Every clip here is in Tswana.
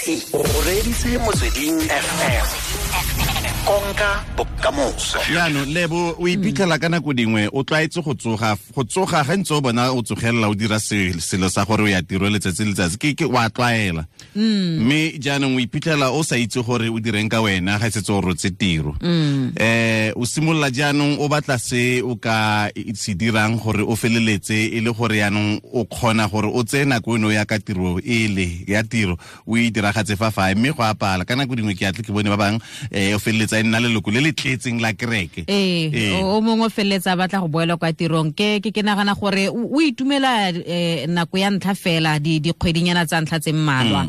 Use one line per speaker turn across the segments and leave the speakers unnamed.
O reditse Motsweding FM, konka bokamoso.
Jaanong Lebo, o iphitlhela ka nako dingwe o tlwaetse go tsoga, go tsoga ga ntse o bona o tsogelela o dira selo sa gore o ya tiro letsatsi le letsatsi, ke wa tlwaela. Mme jaanong o iphitlhela o sa itse gore o direng ka wena ga setse o rotse tiro. O simolola jaanong o batla se o ka se dirang gore o feleletse e le gore jaanong o kgona gore o tseye nako eno ya ka tiro ele ya tiro o e diragatse fa fae, mme go apala ka nako dingwe ke atle ke bone ba bangwe o feleletsa e nna leloko le le tletseng la kereke.
O mongwe o feleletsa a batla go boela kwa tirong. Ke nagana gore o itumela nako ya ntlha fela, dikgwedinyana tsa ntlha tse mmalwa.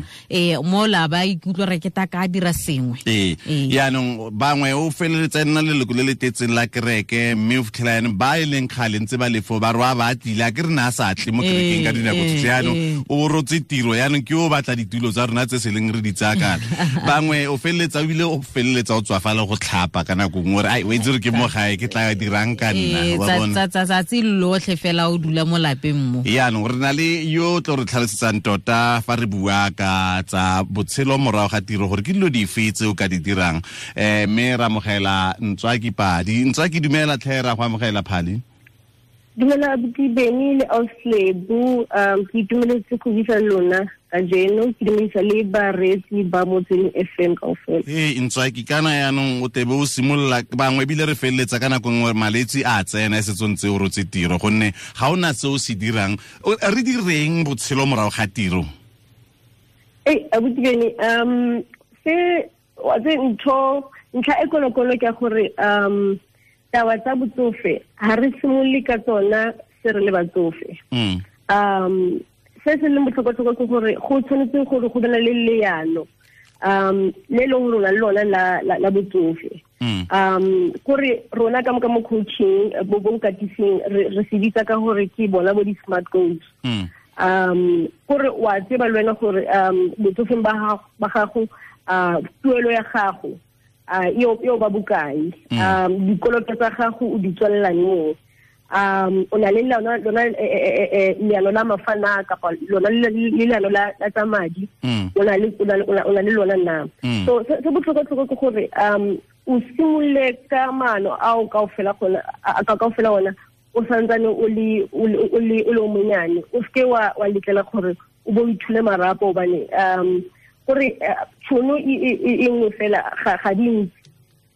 Mo la ba ikutlwa re ke ta ka dira sengwe.
Yaanong bangwe o feleletsa e nna leloko le le tletseng la kereke, mme o fitlhela yaanong ba e leng kgale ntse ba lefo ba roa ba tlile, a ke re ne a sa tle mo kerekeng ka dinako tsotlhe. Yaanong o rotse tiro, yaanong ke o batla ditulo tsa rona tse se leng re di tsaya kana. Bangwe o feleletsa ebile o feleletsa o tswafala go tlhapa ka nako nngwe, ai o itse re ke mo gae ke tla dirang ka nna, wa bona.
Tsatsi lotlhe fela o dula mo lapeng mo.
Yaanong re na le yo tlo re tlhalosetsang tota fa re bua ka tsa botshelo morago ga tiro gore ke dilo dife tse o ka di dirang. Mme ra amogela Ntswaki Padi. Ntswaki, dumela tlhe, ra go amogela Phali.
Dumela abuti Benny le Auslebu, ke itumeletse go buisa lona kajeno, ke dumedisa le bareetsi ba Motsweding FM kaofela.
Ee, Ntswaki, kana yaanong o tebe o simolola bangwe ebile re feleletsa ka nako nngwe malwetse a tsena e setse o ntse o rotse tiro, gonne ga o na se o se dirang. Re direng botshelo morago ga tiro?
Ee, abuti Benny, se wa tse ntho ntlha e kolokolo ke gore taba tsa botsofe ha re simolole ka tsona se re le batsofe. Se se leng botlhokwa-tlhokwa ke gore go tshwanetse gore go bana le leano le leng rona le lona la botsofe. Kore rona ka mo coaching bo bokatising re se bitsa ka gore ke bona bo di-smart goals. Kore wa tseba le wena gore botsofeng ba gago tuelo ya gago eo ba bokae, dikoloto tsa gago o di tswelela neng, o na le lona leano la mafana kapa lona le leano la tsa madi, o na le lona na. So se botlhokwa-tlhokwa ke gore o simolole ka maano ao kaofela ona o santsane o le o monyane, o seke wa letlela gore o bo ithule marapo, hobane gore tšhono e nngwe fela ga di ntsi.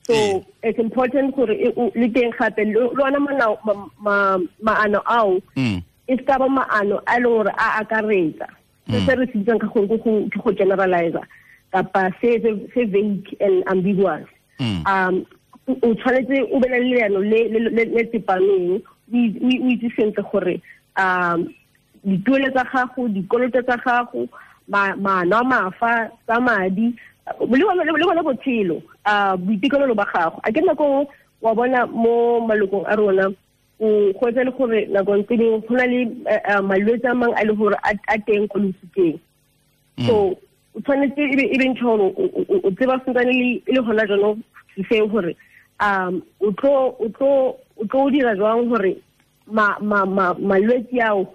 So it's important gore le teng gape le ona maano ao e se ka ba maano a e leng gore a akaretsa se re se bitsang ka gore ke go generalizer kapa se vague and ambiguous. O tshwanetse o be le leano le tsepameng, o itse sentle gore dituelo tsa gago, dikoloto tsa gago, maano a mafa tsa madi le bona botshelo, boitekanelo ba gago. A ke nako wa bona mo malokong a rona o go etsa le gore nakong tse dingwe go na le malwetse a mangwe a le gore a teng ko losikeng. So o tshwanetse e be ntho gore o tseba sentsane e le gona jaanong seo gore o tlo dira jwang gore malwetse ao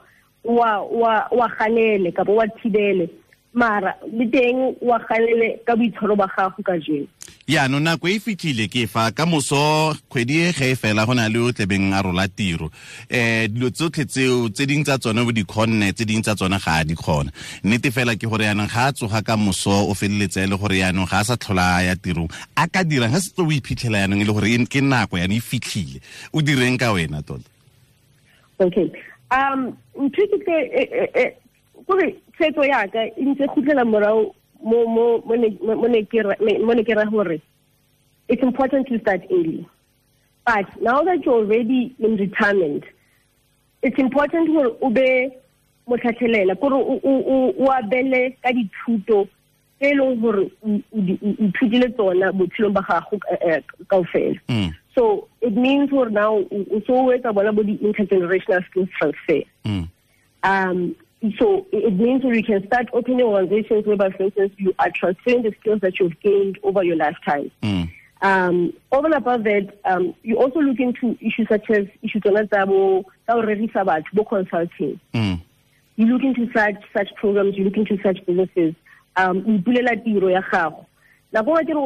wa ganele kapa wa thibele, mara le teng wa ganele ka boitshwaro ba gago ka jeno.
Yaanong nako e fitlhile ke fa ka moso kgwedi e ge e fela go na le o tlebeng a rola tiro. Dilo tsotlhe tseo tse dingwe tsa tsone o di kgonne, tse dingwe tsa tsone ga a di kgona. Nnete fela ke gore yaanong ga a tsoga ka moso o feleletse e le gore yaanong ga a sa tlhola a ya tirong, a ka dirang ga setse o iphitlhela yaanong e le gore ke nako yaanong e fitlhile, o direng ka wena tota?
Okay. Ntho ke tle kore tshwetso ya ka e ntse khutlela morao mo ne ke ra gore it's important to start early, but now that you're already in retirement, it's important gore o be motlhatlhelela, kore o abele ka dithuto tse e leng gore o ithutile tsona botshelong ba gago kaofela. So it means gore now o so o etsa bona bo di-intergenerational skills transfer. So it means you can start opening organizations whereby, for instance, you are transferring the skills that you've gained over your lifetime. Over and above that, you also look into issues such as issues tsa bo consulting. You look into such programs, you look into such businesses. O ipulela tiro ya gago. Nako nngwe ke re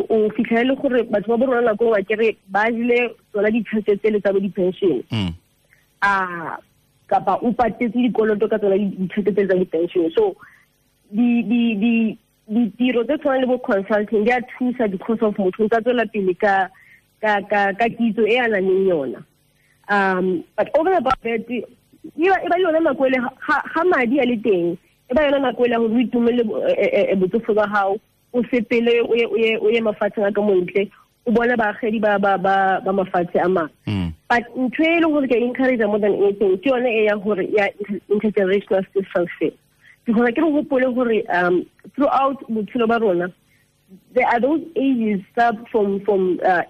o fitlhele gore batho ba bo rona nako nngwe ke re ba jile tsona ditšhelete tsele tsa bo di-pension. A kapa o patetse dikoloto ka tsona ditšhelete tsele tsa di-pension. So ditiro tse tshwanang le bo consulting di a thusa because of motho o tsa tswela pele ka kitso e a nang le yona. But over and above that, e ba yona nako ele ga madi a le teng, e ba yona nako ele gore o itumele botsofe ba gago, o sepele o ye mafatsheng a ka montle, o bone baagedi ba mafatshe a mangwe. But ntho e leng gore ke encourage more than anything ke yone e ya gore ya intergenerational skills transfer. Because ke re gopole gore throughout botshelo ba rona, there are those ages up from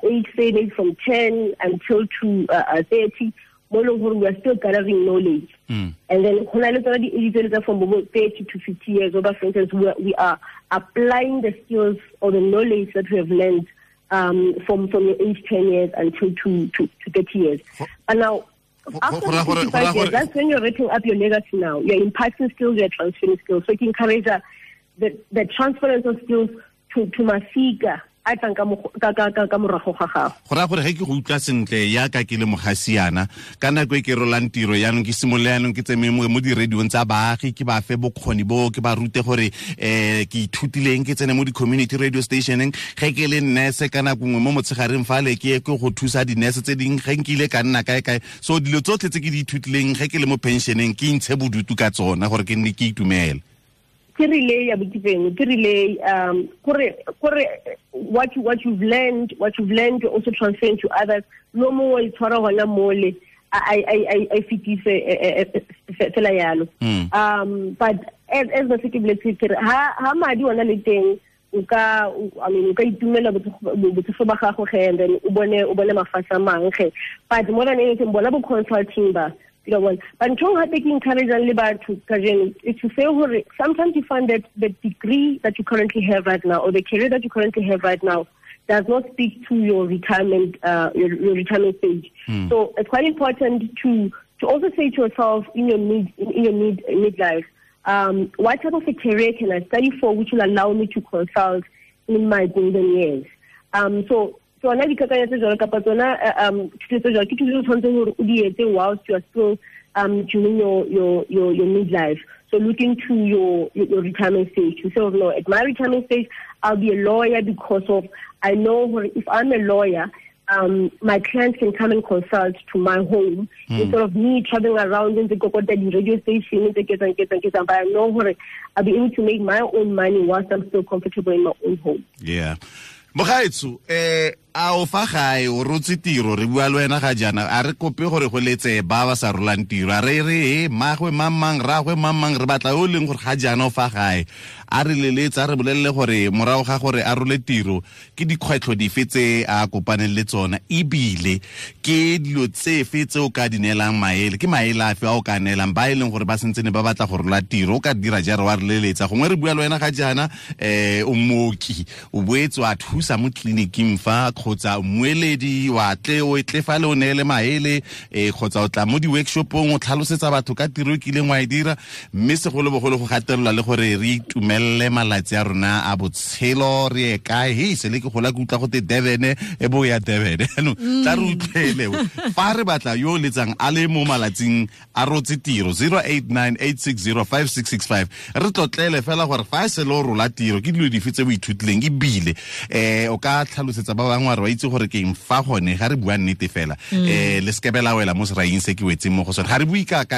age, say maybe from 10 until to 30, mo leng gore we are still gathering knowledge. And then go na le tsona di-age tsele tsa from 30 to 50 years, over, for instance, we are applying the skills or the knowledge that we have learned from your age 10 years until to 30 years. And now, after 55 years, that's when you're writing up your legacy now. You're imparting skills, you're transferring skills. So you encourage the transference of skills to masika a tlang ka morago ga gago.
Go raya gore ge ke go utlwa sentle yaka ke le mogasiana ka nako e ke rolang tiro yaanong ke simolole yaanong ke tseme mo di-radiong tsa baagi, ke ba fe bokgoni bo, ke ba rute gore ke ithutileng, ke tsene mo di-community radio stationeng. Ge ke le nurse ka nako nngwe mo motshegareng fale ke ye ke go thusa di-nurse tse dingwe ge nkile ka nna kae kae. So dilo tsotlhe tse ke di ithutileng ge ke le mo pensioneng ke intshe bodutu ka tsona gore ke nne ke itumele.
Ke relay ya botipeng, ke relay kore what you've learned you also transfer to others. No mongwe o itshwara hona mole I fetise fela yalo. But as ba se ke boletse ke re ha madi ona le teng, o ka itumela botsofe ba gago ge, and then o bone mafatshe a mangwe ge. But more than anything, bona bo consulting ba. But ntho gape ke encourage le batho kajeno is to say gore sometimes you find that the degree that you currently have right now or the career that you currently have right now does not speak to your retirement your retirement stage. So it's quite important to also say to yourself in your midlife, what type of a career can I study for which will allow me to consult in my golden years? So tsona dikakanyo tse jalo kapa tsona thuto tse jalo ke thuto tse tshwanetseng gore o di etse whilst you are still during your midlife. So looking to your retirement stage. You say, oh, no, at my retirement stage, I'll be a lawyer because of I know if I'm a lawyer, my clients can come and consult to my home instead of me traveling around in the Kokota radio station, but I know I'll be able to make my own money whilst I'm still comfortable in my own home.
Yeah. Mogaetso, a o fa gae o rotse tiro, re bua le wena ga jaana, a re kope gore go letse ba ba sa rolang tiro, a re re magwe mamang ragwe mamang, re batla o leng gore ga jaana o fa gae, a re leletse, a re bolelele gore morago ga gore a role tiro ke dikgwetlho dife tse a kopaneng le tsona, ebile ke dilo tsefe tse o ka di neelang maele, ke maele afe a o ka neelang ba e leng gore ba sentsene ba batla go rola tiro, o ka dira jare wa re leletsa. Gongwe re bua le wena ga jaana, o mooki, o boetse wa thusa mo tleliniking fa, kgotsa mmueledi wa tle o tle fa le o neele maele, kgotsa o tla mo di-workshopong o tlhalosetsa batho ka tiro e kileng wa e dira, mme segolobogolo go gatelelwa le gore re itumelele malatsi a rona a botshelo, re ye kae. Hei, sele ke gola ke utlwa gote Durban, e bo ya Durban. Jaanong tla re utlwele fa re batla yo o letsang a le mo malatsing a rotse tiro, 0898605665, re tlotlele fela gore fa e sele o rola tiro ke dilo dife tse o ithutileng, ebile o ka tlhalosetsa ba bangwe wa itse gore ke eng fa gone ga re bua nnete fela, le sekebe la wela mo seraing se ke wetseng mo go sone. Ga re bue ka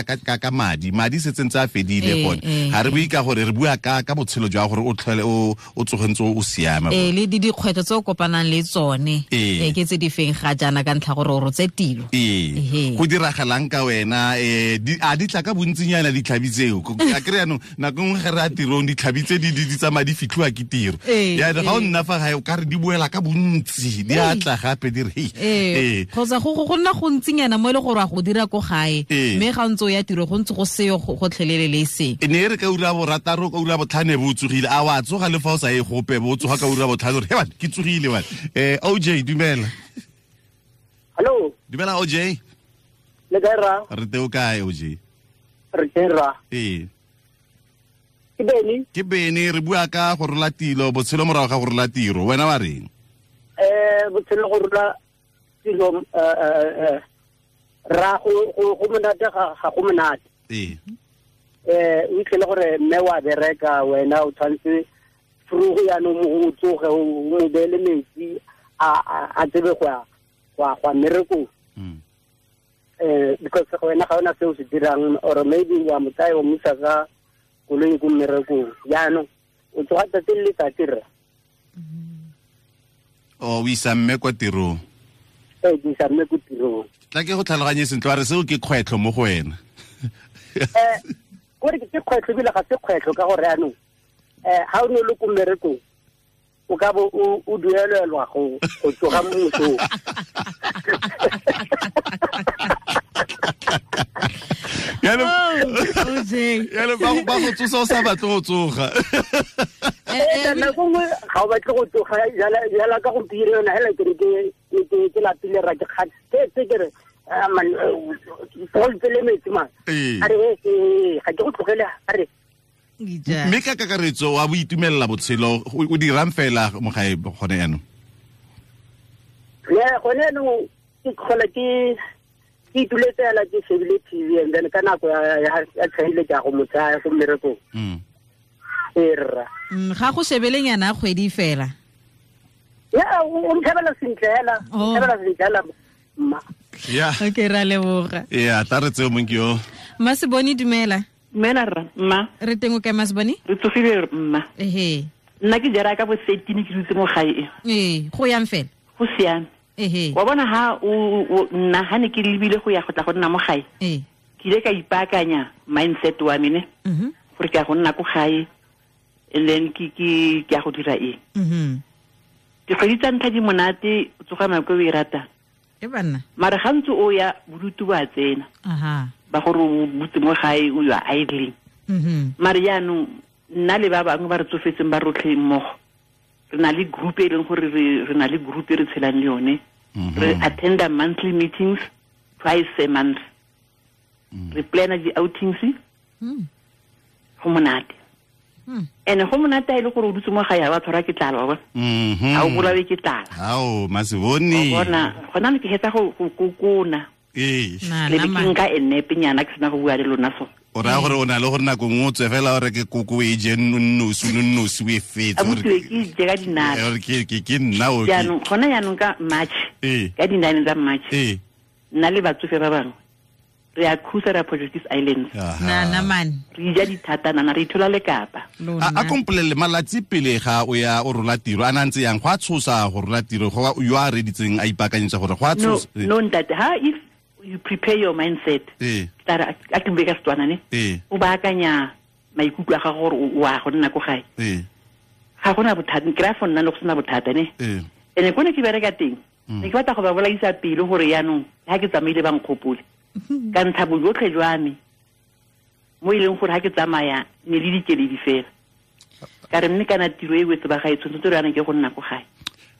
madi, madi se tsentse a fedile gone, ga re bue ka gore re bua ka botshelo jwa gore o tlhole o tsogentse o siame.
Le dikgwetlho tse o kopanang le tsone ke tse di feng ga jaana ka ntlha gore o rotse tiro,
go diragalang ka wena, a di tla ka bontsinyana ditlhabi tseo? A kry yanong nako nngwe ge re a tirong ditlhabi tse di tsamaya di fitlhiwa ke tiro, jaanong ga o nna fa gae o ka re di boela ka bontsi, di a tla gape di re
kgotsa go nna gontsinyana mo e le gore wa go dira ko gae, mme ga ntse o ya tiro go ntse go seyo gotlhelele le seng.
E ne e re ka ura borataro, ka ura botlhano bo o tsogile, a wa tsoga le fa o sa ye gope, bo o tsoga ka ura botlhano gore he ke tsogile bane. OJ, dumela.
Hello.
Dumela OJ.
Le kae ra?
Re teng o kae OJ?
Re teng ra.
Ee.
Ke Beni.
Ke Beni, re bua ka go rola tiro, botshelo morago ga go rola tiro. Wena wa reng?
Botshelo go rola tiro ra go monate ga go monate.
Ee.
O itlhele gore mme wa bereka wena o tshwanetse frugo yaanong o tsoge o mo beele metsi a tsebe go ya go mmerekong. Because wena ga ona se o se dirang, or maybe wa mo tsaya o mo isa ka koloi ko mmerekong. Jaanong o tsoga tsatsi le letsatsi rra.
O isa mme kwa tirong?
Ee, ke isa mme ko tirong.
Tla ke go tlhaloganye sentle, wa re seo ke kgwetlho mo go wena?
Kore ke kgwetlho ebile ga se kgwetlho ka gore jaanong ga o ne o le ko mmerekong o ka bo o duelelwa go tsoga mo mosong.
Yalo ba go tsosa o sa batle go tsoga.
Nako nngwe ga o batle go tsoga jala ka gompieno yona hela ke re ke lapile ra ke kgathetse ke re man le metsi man. A re ga ke go tlogele a re.
Mme ka kakaretso wa bo itumelela botshelo, o dirang fela mo gae gone yaanong?
Yeah, gone yaanong ke tlhola ke ituletse fela ke shebile TV, and then ka nako ya tshwanele ke ya go mo tsaya go mmerekong. Ee rra.
Ga go shebeleng yana kgwedi fela?
Yeah, o nthebela sentle hela, o nthebela sentle hela mma.
Yeah.
Okay, ra leboga.
Yeah, tla re tseo mong ke yo.
Masiboni, dumela.
Dumela rra, mma.
Re teng o kae Masiboni?
Re tsogile mma.
Ehe.
Nna ke jara ka bo 13 ke dutse mo gae.
Ee, go yang fela?
Go siame.
Ehe.
Wa bona ha o nna ha ne ke lebile go ya go tla go nna mo gae.
Ee.
Ke ile ka ipaakanya mindset wa me ne. Gore ke ya go nna ko gae and then ke ya go dira eng. Dikgwedi tsa ntlha di monate, o tsoga nako e o e ratang.
E banna.
Mara ga ntse o ya bodutu ba tsena.
Aha.
Ba gore o butse mo gae o ya idling. Mare jaanong nna le ba bangwe ba re tsofetseng ba rotlhe mmogo, re na le group e leng gore re na le group e re tshelang le yone. Re attenda monthly meetings twice a month. Re plana di-outings. Go monate. And go monate a e le gore o dutse mo gae ga wa tshwarwa ke tlala, wa bona. Ga o bolawe ke tlala.
Ao, Masiboni.
Wa bona, gona ne ke hetsa go kokona.
Ee.
Le be ke nka e nepenyana ke sena go bua le lona so.
O raya gore o na le gore nako nngwe o tswe fela o reke koko o e je nnosi o e fetse.
Abuti ke je ka dinala.
Ke nna o.
Jaanong gona jaanong ka March. Ka di-9 tsa March. Nna le batsofe ba bangwe re a cruise ra Portuguese Islands.
Na man.
Re ja dithata nana re ithola le Kapa.
A kompolele malatsi pele ga o ya o rola tiro a na ntse yang go a tshosa go rola tiro go yo a reditseng a ipaakanyetsa gore go a tshosa.
No ntate, ha if you prepare your mindset. Tara a ke bue ka Setswana ne. O baakanya maikutlo a gago gore o a go nna ko gae. Ga gona bothata, ke raya for nna le go sena bothata ne. Ene ko ne ke bereka teng. Ne ke batla go ba bolaisa pelo gore yaanong ha ke tsamaile ba nkgopole. Ka ntsha bojotlhe jwa me mo e leng gore ha ke tsamaya ne le dikeledi fela. Ka re mme kana tiro e wetse ba gae tshwanetse re yana ke go nna ko gae.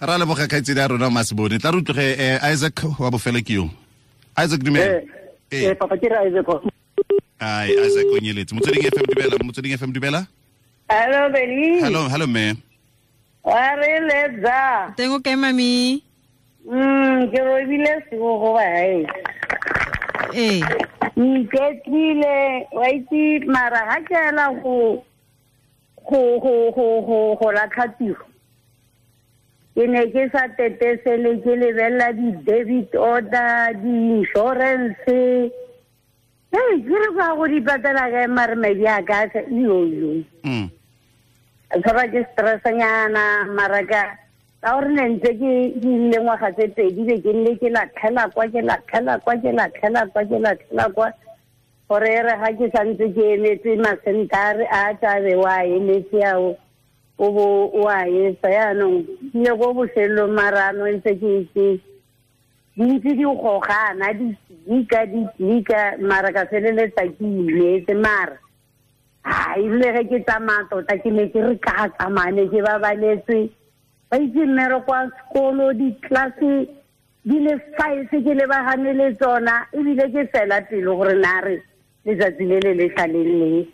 Ra leboga kgaitsedi ya rona Masiboni. Tla re utlwe Isaac wa bofelo ke yo. Isaac dumela.
Papa ke re Isaac.
Ai, Isaac o nyeletse. Motsweding FM dumela, Motsweding FM dumela.
Hello Beni.
Hello, hello me.
Wa re letsa.
Teng o kae mami?
Ke robile sego go ba hae.
Ee.
Iketlile, wa itse mara ga ke ela go latlha tiro. Ke ne ke sa tetesele ke lebelela di-debit order, di-insurance. Hey, ke re go go di patela kae mare madi a ka yo. A tshwarwa ke stressanyana mara ka gore ne ntse ke ile ngwaga tse pedi be ke nne ke latlhela kwa ke latlhela kwa ke latlhela kwa ke latlhela kwa gore e re ga ke santse ke emetse masentare a tlabe wa emetse ao o bo o a etsa yaanong ke ile ko bofelelong marano ntse ke di ntse di gogana di tlika mara ka feleletsa ke imetse mara a ebile ge ke tsamaya tota ke ne ke re ka tsamaya ne ke babaletswe ba itse mmereko wa sekolo di-classe di le 5 ke lebagane le tsona ebile ke fela pelo gore na re letsatsi le le le tlaleng le.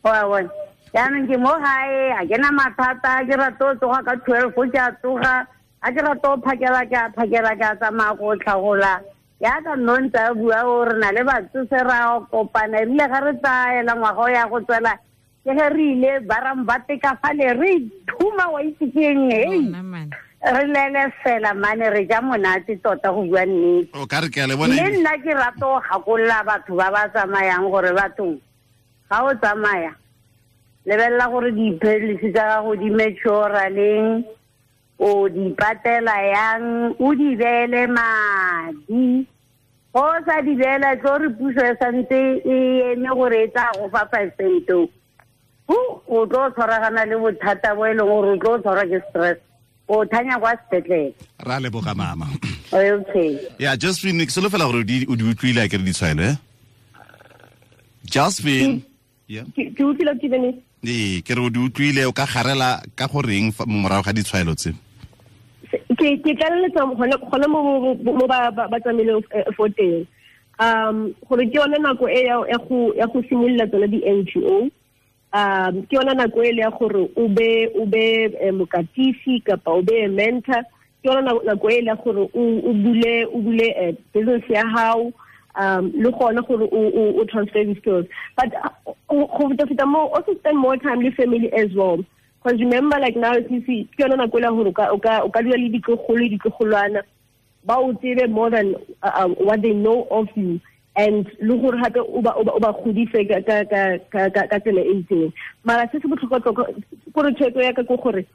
Wa bona. Jaanong ke mo gae, a ke na mathata, ke rata go tsoga ka 12 ke a tsoga, a ke rata go phakela ke a phakela ke a tsamaya go tlhagola. Yaka nno ntse a bua gore na le batsofe ra kopana, erile ga re tsaela ngwaga o ya go tswela, ke ge re ile barambate ka fale re thuma wa itse keng, hei. Re lele fela mane re ja monate tota go bua nnete.
O ka re ke a le bona.
Le nna ke rata go gakolola batho ba ba tsamayang gore bathong ga o tsamaya lebelela gore dipilisi tsa gago di mature leng, o di patela yang, o di beele madi. Go sa di beela tlo re puso e santse e eme gore e tla go fa 5 cent. O tlo tshwaragana le bothata bo e leng gore o tlo tshwarwa ke stress. O thanya kwa sepetlele.
Ra leboga mama.
Okay.
Yeah, Josephine, ke solofela gore o di utlwile a ke re ditshwaelo, eh? Josephine. Yeah.
Ke utlwile ke bene.
Ee, ke re o di utlwile, o ka garela ka goreng morago ga ditshwaelo tse?
Ke tlaleletsa gone mo ba tsamaileng fo teng. Gore ke yone nako e ya go simolola tsone di-NGO. Ke yona nako e le ya gore o be mokatisi kapa o be mentor. Ke yona nako e le ya gore o bule business ya hao, le gone gore o transfer the skills. But go feta mo, also spend more time with family as well. Because remember, like now, you see, ke yona nako e le gore o ka dula le ditlogolo ditlogolwana ba o tsebe more than what they know of you. And le gore gape o ba godise ka tsela e itseng. Mara se se botlhokwa gore tshwetso ya ka ke gore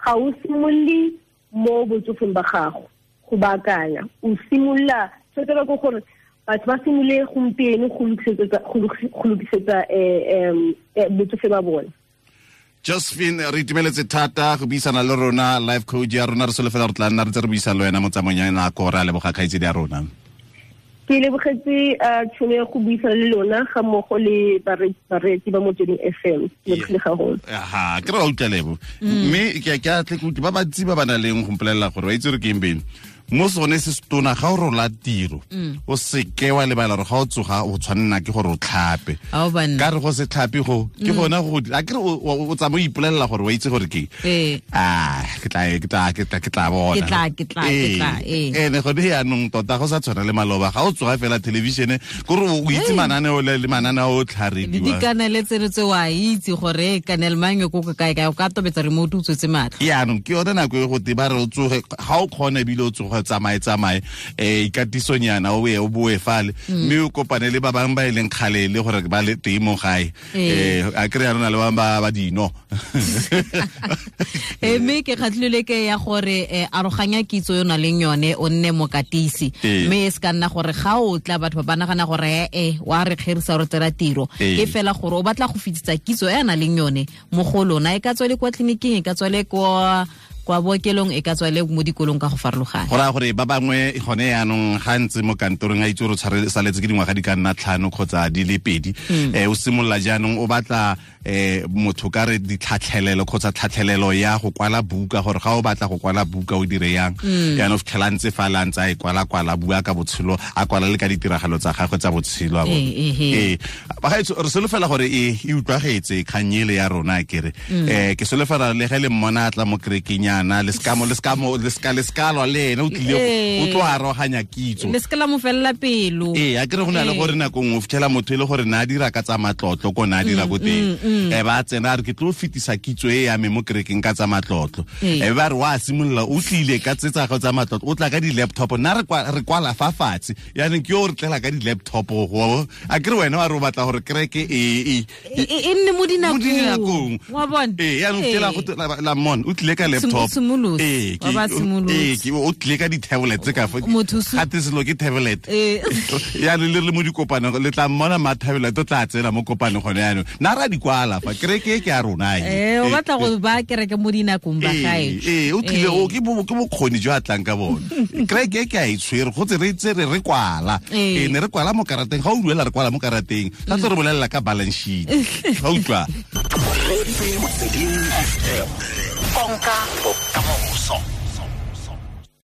ga o simolole mo botsofeng ba gago go baakanya, o simolola tshwetso ka gore batho ba simolole gompieno go lokisetsa botsofe ba bone.
Josephine, re itumeletse thata go buisana le rona, life coach ya rona. Re solofela re tla nna re ntse re buisana le wena mo tsamaong ya nako. Re a leboga kgaitsedi ya rona.
Ke lebogetse tšhono ya go buisana le lona ga mmogo le bareetsi ba Motsweding FM. Ke lebogile gagolo.
Aha, ke re wa utlwa lebo. Mme ke a tle ke utlwe ba bantsi ba ba nang leng go mpolelela gore wa itse gore ke eng beng. Mo sone se setona ga o rola tiro, o seke wa lebala gore ga o tsoga o tshwanela ke gore o tlhape. Ka re go se tlhape go ke gona go a ke re o tsamaya o ipolelela gore wa itse gore ke ah ke tla bona.
Ke tla.
Ene gone yaanong tota go sa tshwana le maloba ga o tsoga fela television gore o itse mananeo le mananeo o tlharediwa.
Dikanele tseno tse wa itse gore kanel mang ko kae kae o ka tobetsa remote o tswetse matlho.
Yaanong ke yone nako e go te ba re o tsoge ga o kgone ebile o tsoga tsamaye ikatisonyana o ye o boe fale mme o kopane le ba bangwe ba e leng kgale le gore ba le teng mo gae. A kry ya rona le bangwe ba dino.
Mme ke kgatlhile ke ya gore aroganya kitso yo na leng yone o nne mokatisi. Mme e se ka nna gore ga o tla batho ba nagana gore wa re kgerisa re tsela tiro. Ke fela gore o batla go fetisa kitso e a na leng yone mo go lona, e ka tswa le kwa tleliniking, e ka tswa le kwa bookelong, e ka tswa le mo dikolong ka go farologana.
Go raya gore ba bangwe gone yaanong ga ntse mo kantorong a itse gore o saletse ke dingwaga di ka nna 5 kgotsa di le 2, o simolola jaanong o batla motho ka re ditlhatlhelelo kgotsa tlhatlhelelo ya go kwala buka, gore ga o batla go kwala buka o dire yang. Yaanong o fitlhela ntse fa la ntse a e kwala bua ka botshelo, a kwala le ka ditiragalo tsa gagwe tsa botshelo. Bagaetsho, re solofela gore e utlwagetse kgang ele ya rona kere. Ke solofela le ge le mmona a tla mo kerekeng yana le ska lwa le ene o tlile o tlo aroganya kitso.
Le ska la mo felela pelo.
A kere go na le gore nako nngwe o fitlhela motho e le gore na a dira ka tsa matlotlo ko na a dira ko teng. Ba tsena a re ke tlo fetisa kitso e ya me mo kerekeng ka tsa matlotlo. Ba re wa simolola o tlile ka tse tsa gago tsa matlotlo, o tla ka di-laptop, nna re kwala fa fatshe. Yaanong ke yo re tlela ka di-laptop go a kere wena wa re o batla gore kereke e
nne mo dinakong. Wa bona?
Yaanong fitlhela go la mon o tlile ka laptop. O tlile ka di-tablet tse ka fa gate selo ke tablet. Yaanong le re mo dikopanong le tla mmona ma tablet o tla tsena mo kopanong gone yaanong. Nna ra di kwala fa kereke ke ya rona
e. O batla go ba kereke mo dinakong ba gae.
O tlile o ke bokgoni jo a tlang ka bone. Kereke ke a e tshwere go tse re tse re kwala. Ne re kwala mo karateng, ga o duela re kwala mo karateng. Tla tlo re bolelela ka balance sheet. Ga utlwa.
Konka bokamoso.